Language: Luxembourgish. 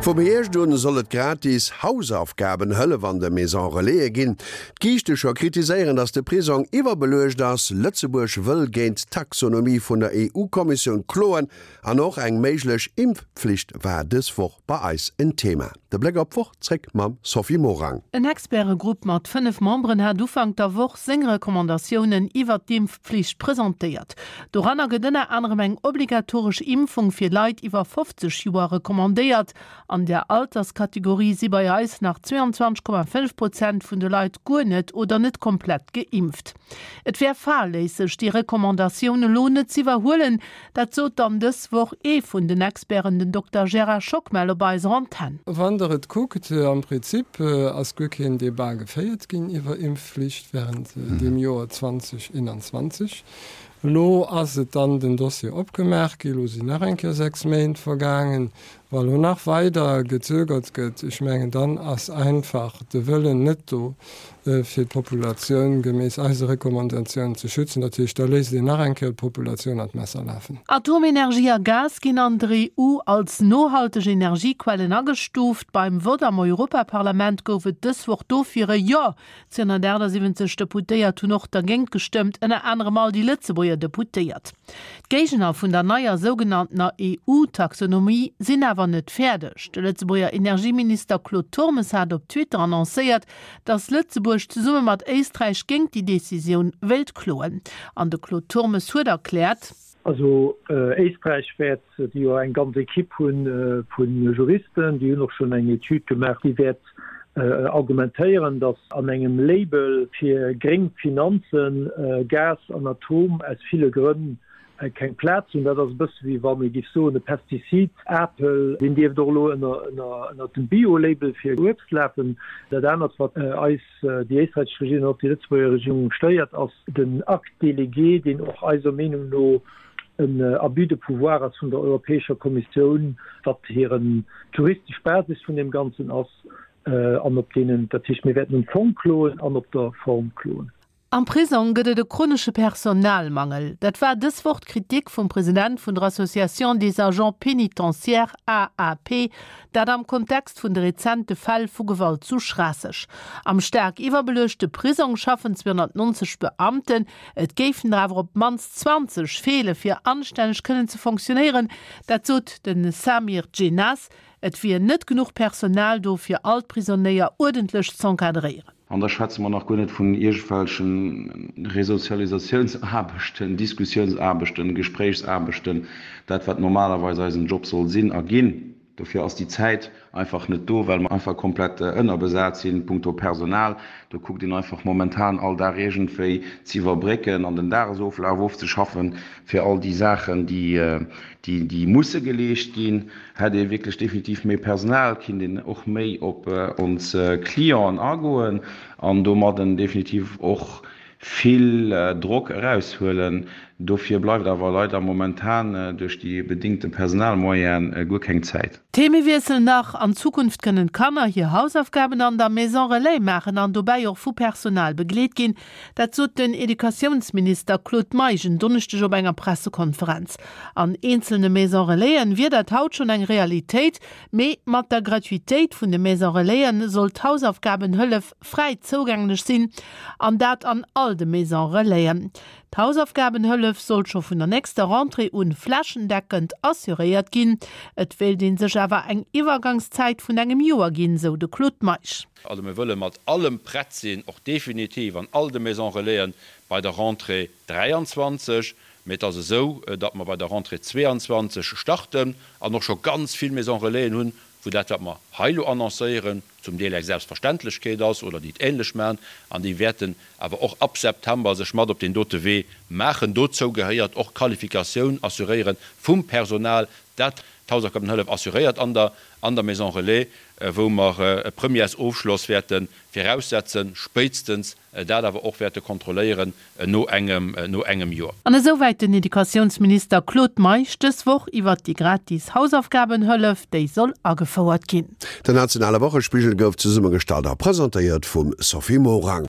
Vum Hierscht un soll et gratis Hausaufgabenhëllef an de Maison Relaisen ginn. D'Giichtecher kritiséieren, datt de Prisong iwwerbeluecht ass. Lëtzebuerg wëll géint d'Taxonomie vun der EU-Kommissioun kloen an och eng méiglech Impfpflicht war dës Woch bei eis en Thema. De Bléck op d'Woch zréck mam Sophie Morang. En Expertegrupp mat 5 Memberen hat Ufank der Woch seng Recommandatiounen iwwert d'Impfpflicht presentéiert. Doranner gëtt ënner anerem eng obligatoresch Impfung fir Leit iwwer 50 Joer recommandéiert. An där Alterskategorie si bei eis nach 22,5 Prozent vun de Leit guer net oder net komplett geimpft. Et wär fahrléisseg, déi Recommandatioun elo net z'iwwerhuelen, Dat sot dann dës Woch ee vun den Experten, den Dokter Gérard Schockmel op eiser Antenn. Wann Der et kuckt, am Prinzip ass guer keen Debat geféiert ginn iwwer Impfflicht während deem Joer 2021. Elo ass et dann den Dossier opgemaach gi, elo sinn nach eng Kéier 6 Méint vergaangen. Wa lo nach weider gezögert gëtt, ech mengen, dann ass einfach de Wëllen net do, fir d'Populatioun geméiss eise Recommandatiounen ze schützen. Dat heescht, da léisst een nach eng Kéier d'Populatioun an d'Messer lafen. Atomenergie a Gas ginn an der EU als nohalteg Energiequellen agestuuft. Beim Vott am Europaparlament gouf et dës Woch dofir e Jo. 278 Deputéiert hunn och dergéint gestëmmt, ënner anerem all déi Lëtzebuerger Deputéiert. D'Géigner vun der neier sougenanntener EU-Taxonomie sinn awer net fäerdeg. De Lëtzebuerger Energieminister Claude Turmes hat op Twitter annoncéiert, datt Lëtzebuerg zesumme mat Éisträich géint déi Decisioun wéilt kloen. An de Claude Turmes huet erkläert. Also Éisträich wäert, déi jo eng ganz Equipe hu vu Juristen, déi hunn och schonn eng Etüd gemaach, déi wäert argumentéieren, datt an engem Label fir gréng Finanzen Gas an Atom aus ville Grënn keng Plaz hunn. Dat ass e bësse wéi wann ee géif soen, e Pestizid, Apel, deen dierft och elo ënner dem Bio-Label fir Uebst lafen. Dat anert, wat eis, déi éisträichesch Regierung an och déi Lëtzebuerger Regierung stéiert, ass den Acte délégué, deen och eiser Meenung no en Abus de pouvoir ass vun der Europäescher Kommissioun, wat hiren d'juristesch Basis vun deem Ganzen ass an op deenen, dat heescht, mir wäerten um Fong kloen an op der Form kloen. Am Prisong gëtt et e chronesche Personalmangel. Dat war dës Woch d'Kritik vum President vun der Association des Agents Pénitentiaires, AAP, dat am Kontext vun de rezente Fäll vu Gewalt zu Schraasseg. Am staark iwwerbeluechte Prisong schaffen 290 Beamten. Et géifen der awer op d'mannst 20 feele fir anstänneg kënnen ze fonctionéieren. Dat sot de Samir Djennas. Et wier net genuch Personal do fir all d'Prisonéier uerdentlech z'encadréieren. An da schwätze mer nach guer net vun iergendwelchen Resozialisatiounsaarbechten, Diskussiounsaarbechten, Gespréichsaarbechten, dat wat normalerweis eisen Job soll sinn a ginn. Dofir ass déi Zäit einfach net do, well mer einfach komplett ënnerbesat sinn punkto Personal. Do kuckt een einfach momentan all Dag iergendwéi ze iwwerbrécken an den Dagesoflaf ofzeschaffen, fir all déi Saachen, déi musse geleescht ginn. Hätt ee wierklech definitiv méi Personal, kinnt een och méi op ons Clienten agoen an domadden definitiv och vill Drock eraushuelen. Dofir bleift awer leider momentan duerch déi bedingte Personalmoyene guer keng Zäit. Themewiessel nach, An Zukunft kënnen d'Kanner hir Hausaufgaben an der Maison Relais maachen an dobäi och vu Personal begleet ginn. Dat sot den Educatiounsminister Claude Meisch en Donneschdeg op enger Pressekonferenz. An eenzelne Maison Relaisen wier dat haut schonn eng Realitéit, mee mat der Gratuitéit vun de Maison Relaisen soll d'Hausaufgabenhëllef fräi zougänglech sinn, an dat an all de Maison Relaisen. D'Hausaufgabenhëllef soll scho vun der nächster Rentrée un flächendeckend assuréiert ginn. Et wéilt ee sech awer eng Iwwergangszäit vun engem Joer ginn, sou de Claude Meisch. Also mir wëlle mat allem prett sinn, och definitiv an all de Maisons Relaisen bei der Rentrée 23. Mee et ass esou, datt mer bei der Rentrée 22 starten an och scho ganz vill Maisons Relaisen hunn, wou dat, wat mer hei elo annoncéieren, zum Deel eng Selbstverständlechkeet ass oder déi et ähnlech maachen. An déi wäerten awer och ab September sech mat op deen dote Wee maachen. Dozou gehéiert och d'Qualifikatioun assuréiere vum Personal, dat d'Hausaufgabenhëllef assuréiert an der an der Maison Relais, wou mer e Premièresofschloss wäerte viraussetzen, spéitstens dat awer och wäerte kontrolléieren no engem no engem Joer. An esouwäit den Educatiounsminister Claude Meisch dës Woch iwwert déi gratis Hausaufgabenhëllef, déi soll agefouert ginn. Den nationale Wochespigel gouf zesummegestallt a presentéiert vum Sophie Morang.